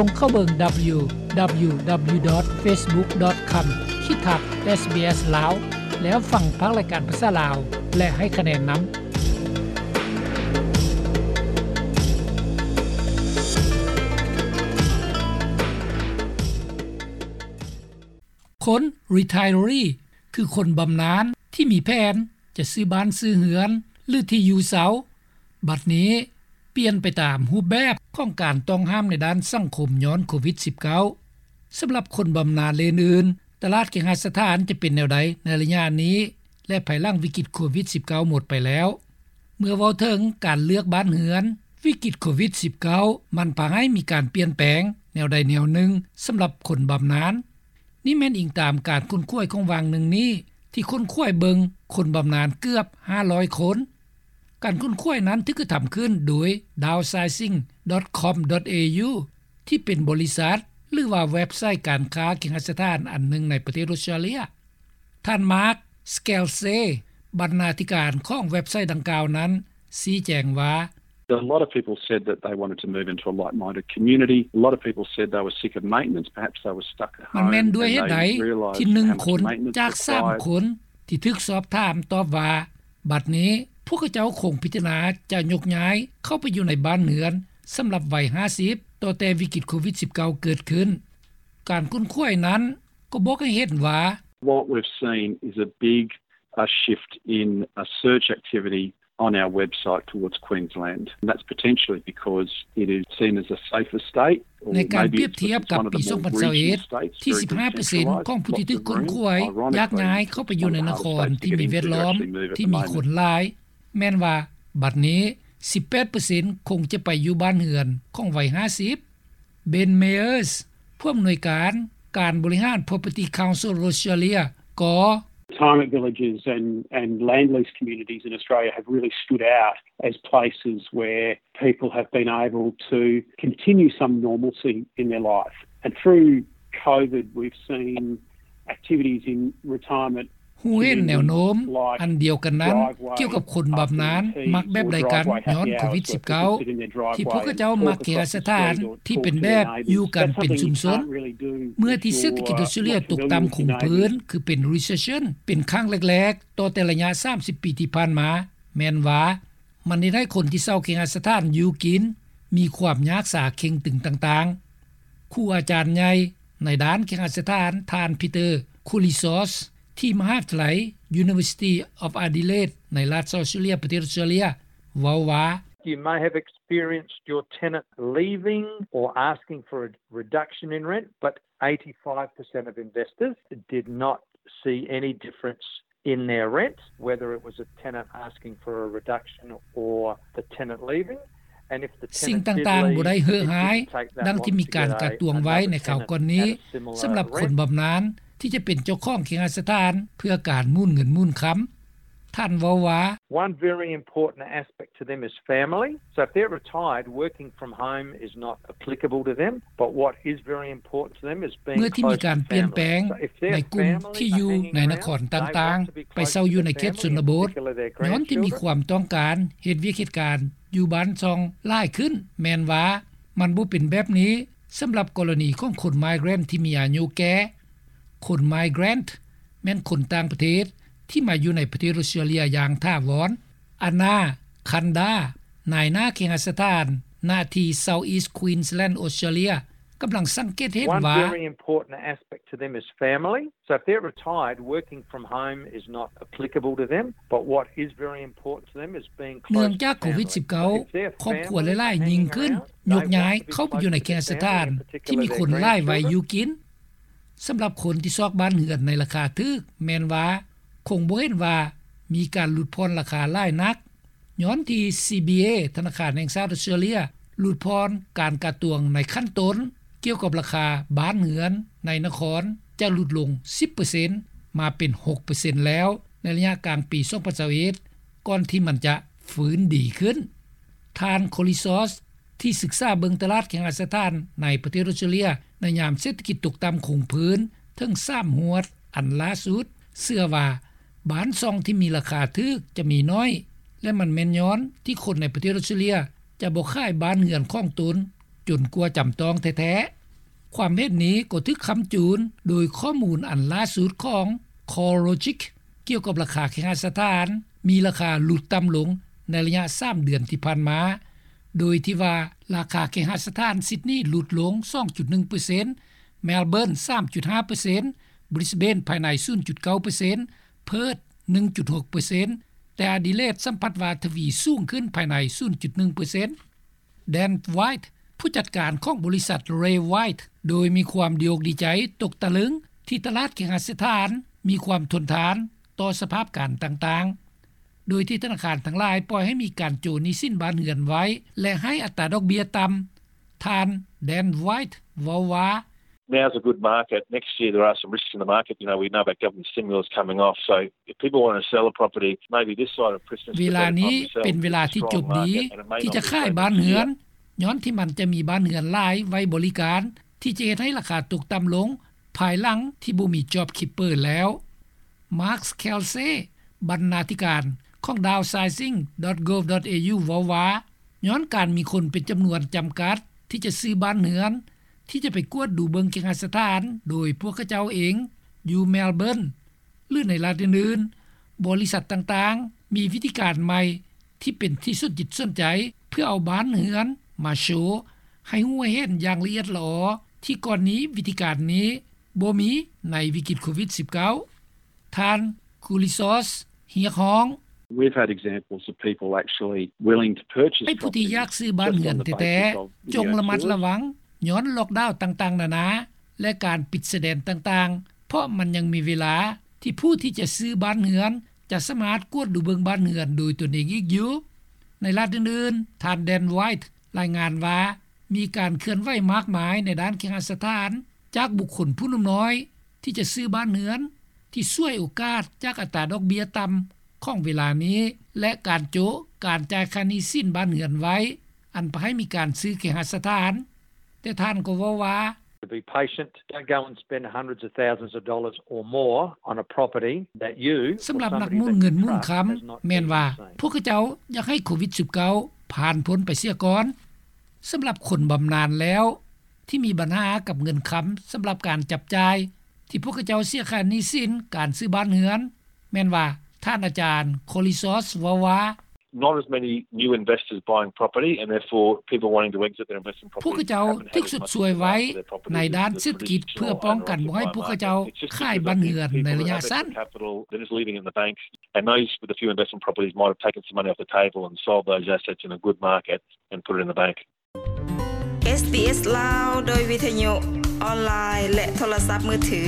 ສົ່ງເຂົ້າເບິ່ງ www.facebook.com/sbs ລາວ ແລ້ວຟັງພາກລາຍການພາສາລາວ ແລະ ໃຫ້ຄະແນນນຳ. ຄົນ Retiree ຄືຄົນບຳນານທີ່ມີແຜນຈະຊື້ບ້ານຊື້ເຮືອນ ຫຼື ທີ່ຢູ່ເຊົ່າ ບັດນີ້ປ່ຽນໄປຕາມຮູບແບບຂອງການຕ້ອງຫ້າມໃນດ້ານສັງຄົມຍ້ອນໂຄວິດ-19. ສຳລັບຄົນບຳນານ ແລະ ອື່ນໆ, ຕະຫຼາດເຄຫະສະຖານຈະເປັນແນວໃດໃນໄລຍະນີ້ ແລະ ພາຍຫຼັງວິກິດໂຄວິດ-19 ໝົດໄປແລ້ວ? ເມື່ອເວົ້າເຖິງການເລືອກບ້ານເຮືອນ, ວິກິດໂຄວິດ-19 ມັນພາໃຫ້ມີການປ່ຽນແປງແນວໃດແນວໜຶ່ງສຳລັບຄົນບຳນານ. ນີ້ແມ່ນອີງຕາມການຄົ້ນຄວ້າຍຂອງຫວ່າງໜຶ່ງນີ້ ທີ່ຄົ້ນຄວ້າຍເບິ່ງຄົນບຳນານເກືອບຫ້າຮ້ອຍຄົນ. ການຄົ້ນຄວ້າຍນັ້ນຖືກກະທຳຂຶ້ນໂດຍ downsizing.com.au ທີ່ເປັນບໍລິສັດ ຫຼືວ່າເວັບໄຊການຄ້າເຄຫະສະຖານອັນໜຶ່ງໃນປະເທດອົດສະຕຣາເລຍ. ທ່ານ Mark Scalise ບັນນາທິການຂອງເວັບໄຊດັ່ງກ່າວນັ້ນ ຊີ້ແຈງວ່າ A lot of people said that they wanted to move into a like-minded community. A lot of people said they were sick of maintenance. Perhaps they were stuck at home. ມັນແມ່ນດ້ວຍເຫດໃດທີ່ໜຶ່ງຄົນຈາກສາມຄົນທີ່ຖືກສອບຖາມຕອບວ່າ ບັດນີ້ພວກເຂົາເຈົ້າຄົງພິຈາລະນາຈະຍົກຍ້າຍເຂົ້າໄປຢູ່ໃນບ້ານເຮືອນສຳລັບໄວຫ້າສິບ ຕໍ່ແຕ່ວິກິດໂຄວິດ-19 ເກີດຂຶ້ນ. ການຄົ້ນຄວ້າຍນັ້ນກໍບອກໃຫ້ເຫັນວ່າ What we've seen is a big, a shift in, a search activity on our website towards Queensland. And that's potentially because it is seen as a safer state. ໃນການປຽບທຽບກັບປີສອງພັນຊາວເອັດ ທີ່ສິບຫ້າເປີເຊັນຂອງຜູ້ທີ່ຖືກຄົ້ນຄວ້າຍຢາກຍ້າຍເຂົ້າໄປຢູ່ໃນນະຄອນທີ່ມີແວດລ້ອມທີ່ມີຄົນຫຼາຍ, ແມ່ນວ່າບັດນີ້ສິບແປດເປີເຊັນຄົງຈະໄປຢູ່ບ້ານເຮືອນຂອງໄວຫ້າສິບ. Ben Meyers ຜູ້ອຳນວຍການການບໍລິຫານ Property Council Australia ກໍ Retirement villages and, and land lease communities in Australia have really stood out as places where people have been able to continue some normalcy in their life. And through COVID, we've seen activities in retirement ຮູ້ເຫັນແນວໂນ້ມອັນດຽວກັນນັ້ນກ່ຽວກັບຄົນບຳນານມັກແບບໃດກັນຍ້ອນໂຄວິດ-19 ທີ່ພວກເຂົາເຈົ້າມັກເຄຫະສະຖານທີ່ເປັນແບບຢູ່ກັນເປັນຊຸມຊົນ ເມື່ອທີ່ເສດຖະກິດອົດສະຕຣາເລຍຕົກຕ່ຳຄົງພື້ນ ຄືເປັນ recession ເປັນຄັ້ງແລກໆ ຕໍ່ແຕ່ໄລຍະສາມສິບປີທີ່ຜ່ານມາ ແມ່ນວ່າມັນເຮັດໃຫ້ຄົນທີ່ເຊົ່າເຄຫະສະຖານຢູ່ກິນມີຄວາມຍາກສາເຄັ່ງຕຶງຕ່າງໆ. ຄູອາຈານໃຫຍ່ໃນດ້ານເຄຫະສະຖານ ທ່ານ Peter Koulizos ທີ່ມະຫາວິທະຍາໄລ University of Adelaide ໃນລັດອອສເຕຣເລຍ ປະເທດອອສເຕຣເລຍ ເວົ້າວ່າ You may have experienced your tenant leaving or asking for a reduction in rent, but eighty-five percent of investors did not see any difference in their rent, whether it was a tenant asking for a reduction or the tenant leaving. ສິ່ງຕ່າງໆບໍ່ໄດ້ເຫືອຫາຍ ດັ່ງທີ່ມີການກະຕວງໄວ້ໃນຄາວກ່ອນນີ້ ສຳລັບຄົນບຳນານທີ່ຈະເປັນເຈົ້າຂອງເຄຫະສະຖານເພື່ອການໝູນເງິນໝູນຄຳ. ທ່ານເວົ້າວ່າ One very important aspect to them is family. So if they're retired, working from home is not applicable to them. But what is very important to them is being close to family. ເມື່ອທີ່ມີການປ່ຽນແປງໃນກຸ່ມທີ່ຢູ່ໃນນະຄອນຕ່າງໆ ໄປເຊົ່າຢູ່ໃນເຂດຊົນນະບົດ ຍ້ອນທີ່ມີຄວາມຕ້ອງການເຮັດວຽກເຮັດການຢູ່ບ້ານຊ່ອງຫຼາຍຂຶ້ນ ແມ່ນວ່າມັນບໍ່ເປັນແບບນີ້ສຳລັບກໍລະນີຂອງຄົນ migrant ທີ່ມີອາຍຸແກ່. ຄົນ migrant ແມ່ນຄົນຕ່າງປະເທດທີ່ມາຢູ່ໃນປະເທດອອສເຕຣເລຍຢ່າງຖາວອນ. Anna Kanda ນາຍໜ້າເຄຫະສະຖານ ນະທີ່ South East Queensland Australia ກຳລັງສັງເກດເຫັນວ່າ One very important aspect to them is family. So if they're retired, working from home is not applicable to them. But what is very important to them is being close to family. ເນື່ອງຈາກໂຄວິດ-19 ຄອບຄົວຫຼາຍໆຍິ່ງຂຶ້ນ ຍົກຍ້າຍເຂົ້າໄປຢູ່ໃນເຂດສະຖານທີ່ມີຄົນຫຼາຍໄວຢູ່ກິນ. ສຳລັບຄົນທີ່ຊອກບ້ານເຮືອນໃນລາຄາຖືກ ແມ່ນວ່າຄົງບໍ່ເຫັນວ່າມີການຫຼຸດຜ່ອນລາຄາຫຼາຍນັກ ຍ້ອນທີ່ CBA ທະນາຄານແຫ່ງຊາດອອສເຕຣເລຍ ຫຼຸດຜ່ອນການກະຕວງໃນຂັ້ນຕົ້ນ ກ່ຽວກັບລາຄາບ້ານເຮືອນໃນນະຄອນ ຈະຫຼຸດລົງສິບເປີເຊັນ ມາເປັນຫົກເປີເຊັນແລ້ວ ໃນໄລຍະກາງປີສອງພັນຊາວເອັດ ກ່ອນທີ່ມັນຈະຟື້ນດີຂຶ້ນ. ທ່ານ Koulizos ທີ່ສຶກສາເບິ່ງຕະຫຼາດເຄຫະສະຖານໃນປະເທດອອສເຕຣເລຍ ໃນຍາມເສດຖະກິດຕົກຕ່ຳຄົງພື້ນເຖິງສາມຮວດອັນລ່າສຸດ ເຊື່ອວ່າ ບ້ານຊ່ອງທີ່ມີລາຄາຖືກຈະມີໜ້ອຍ ແລະ ມັນແມ່ນຍ້ອນທີ່ຄົນໃນປະເທດອອສເຕຣເລຍຈະບໍ່ຂາຍບ້ານເຮືອນຂອງຕົນ ຈົນກວ່າຈຳຕ້ອງແທ້ໆ. ຄວາມເຫັນນີ້ກໍຖືກຄ້ຳຈູນໂດຍຂໍ້ມູນອັນລ່າສຸດຂອງ CoreLogic ກ່ຽວກັບລາຄາເຄຫະສະຖານ ມີລາຄາຫຼຸດຕ່ຳລົງໃນໄລຍະສາມເດືອນທີ່ຜ່ານມາ, ໂດຍທີ່ວ່າລາຄາເຄຫະສະຖານຊິດນີຫຼຸດລົງສອງຈຸດໜຶ່ງເປີເຊັນ, ແມລເບີນສາມຈຸດຫ້າເປີເຊັນ, ບຣິສເບນພາຍໃນສູນຈຸດເກົ້າເປີເຊັນ, ເພີດໜຶ່ງຈຸດຫົກເປີເຊັນ, ແຕ່ອະດີເລດສຳຜັດວ່າທະວີສູງຂຶ້ນພາຍໃນສູນຈຸດໜຶ່ງເປີເຊັນ. ແດນ ໄວທ໌ ຜູ້ຈັດການຂອງບໍລິສັດ ເຣ ໄວທ໌ ໂດຍມີຄວາມດີອົກດີໃຈຕົກຕະລຶງທີ່ຕະຫຼາດເຄຫະສະຖານມີຄວາມທົນທານຕໍ່ສະພາບການຕ່າງໆ ໂດຍທີ່ທະນາຄານທັງຫຼາຍປ່ອຍໃຫ້ມີການໂຈະໜີ້ສິນບ້ານເຮືອນໄວ້ ແລະ ໃຫ້ອັດຕາດອກເບ້ຍຕ່ຳ. ທ່ານ ແດນ ໄວທ໌ ເວົ້າວ່າ Now's a good market. Next year there are some risks in the market. You know, we know about government stimulus coming off. So if people want to sell a property, maybe this side of Christmas, ເວລານີ້ເປັນເວລາທີ່ຈົບດີທີ່ຈະຂາຍບ້ານເຮືອນ ຍ້ອນທີ່ມັນຈະມີບ້ານເຮືອນຫຼາຍໄວ້ບໍລິການ ທີ່ຈະເຮັດໃຫ້ລາຄາຕົກຕ່ຳລົງພາຍຫຼັງທີ່ບໍ່ມີ JobKeeper ແລ້ວ. ມາກ ແຄລເຊ ບັນນາທິການຂອງ Downsizing dot gov dot au ເວົ້າວ່າ ຍ້ອນການມີຄົນເປັນຈຳນວນຈຳກັດທີ່ຈະຊື້ບ້ານເຮືອນ ທີ່ຈະໄປກວດດູເບິ່ງເຄຫະສະຖານໂດຍພວກເຂົາເຈົ້າເອງຢູ່ແມລເບີນ ຫຼື ໃນລັດອື່ນໆ, ບໍລິສັດຕ່າງໆມີວິທີການໃໝ່ທີ່ເປັນທີ່ສົນຈິດສົນໃຈ ເພື່ອເອົາບ້ານເຮືອນມາໂຊໃຫ້ຮູ້ໃຫ້ເຫັນຢ່າງລະອຽດລະອໍ ທີ່ກ່ອນນີ້ວິທີການນີ້ບໍ່ມີໃນວິກິດໂຄວິດສິບເກົ້າ. ທ່ານ ຄູລິຊອສ ຮຽກຮ້ອງ We've had examples of people actually willing to purchase ໃຫ້ຜູ້ທີ່ຢາກຊື້ບ້ານເຮືອນແທ້ໆ ຈົ່ງລະມັດລະວັງຍ້ອນລັອກດາວຕ່າງໆນານາ ແລະ ການປິດຊາຍແດນຕ່າງໆ ເພາະມັນຍັງມີເວລາທີ່ຜູ້ທີ່ຈະຊື້ບ້ານເຮືອນຈະສາມາດກວດດູເບິ່ງບ້ານເຮືອນໂດຍຕົນເອງອີກຢູ່. ໃນລັດອື່ນໆ, ທ່ານ ແດນ ໄວທ໌ ລາຍງານວ່າ ມີການເຄື່ອນໄຫວມາກມາຍໃນດ້ານເຄຫະສະຖານ ຈາກບຸກຄົນຜູ້ໜຸ່ມນ້ອຍທີ່ຈະຊື້ບ້ານເຮືອນ ທີ່ສວຍໂອກາດຈາກອັດຕາດອກເບ້ຍຕ່ຳຂອງເວລານີ້ ແລະ ການໂຈະການຈ່າຍຄ່າໜີ້ສິນບ້ານເຮືອນໄວ້ ອັນພາໃຫ້ມີການຊື້ເຄຫະສະຖານ. ແຕ່ທ່ານກໍເວົ້າວ່າ To be patient, don't go and spend hundreds of thousands of dollars or more on a property that you ສຳລັບນັກໝູນເງິນໝູນຄຳ ແມ່ນວ່າພວກເຂົາເຈົ້າຢາກໃຫ້ໂຄວິດສິບເກົ້າຜ່ານພົ້ນໄປເສຍກ່ອນ. ສຳລັບຄົນບຳນານແລ້ວ ທີ່ມີບັນຫາກັບເງິນຄຳສຳລັບການຈັບຈ່າຍ ທີ່ພວກເຂົາເຈົ້າເສຍຄ່າໜີ້ສິນການຊື້ບ້ານເຮືອນ ແມ່ນວ່າ ທ່ານອາຈານ ໂຄລິຊອສ ເວົ້າວ່າ Not as many new investors buying property and therefore people wanting to exit their investment property. ພວກເຂົາເຈົ້າຖືກຊົດຊ່ວຍໄວ້ໃນດ້ານເສດຖະກິດ ເພື່ອປ້ອງກັນບໍ່ໃຫ້ພວກເຂົາເຈົ້າຂາຍບ້ານເຮືອນໃນໄລຍະສັ້ນ. Capital that is leaving in the banks, and those with a few investment properties might have taken some money off the table and sold those assets in a good market and put it in the bank. ເອສບີເອສ ລາວ ໂດຍວິທະຍຸ ອອນລາຍ ແລະ ໂທລະສັບມືຖື.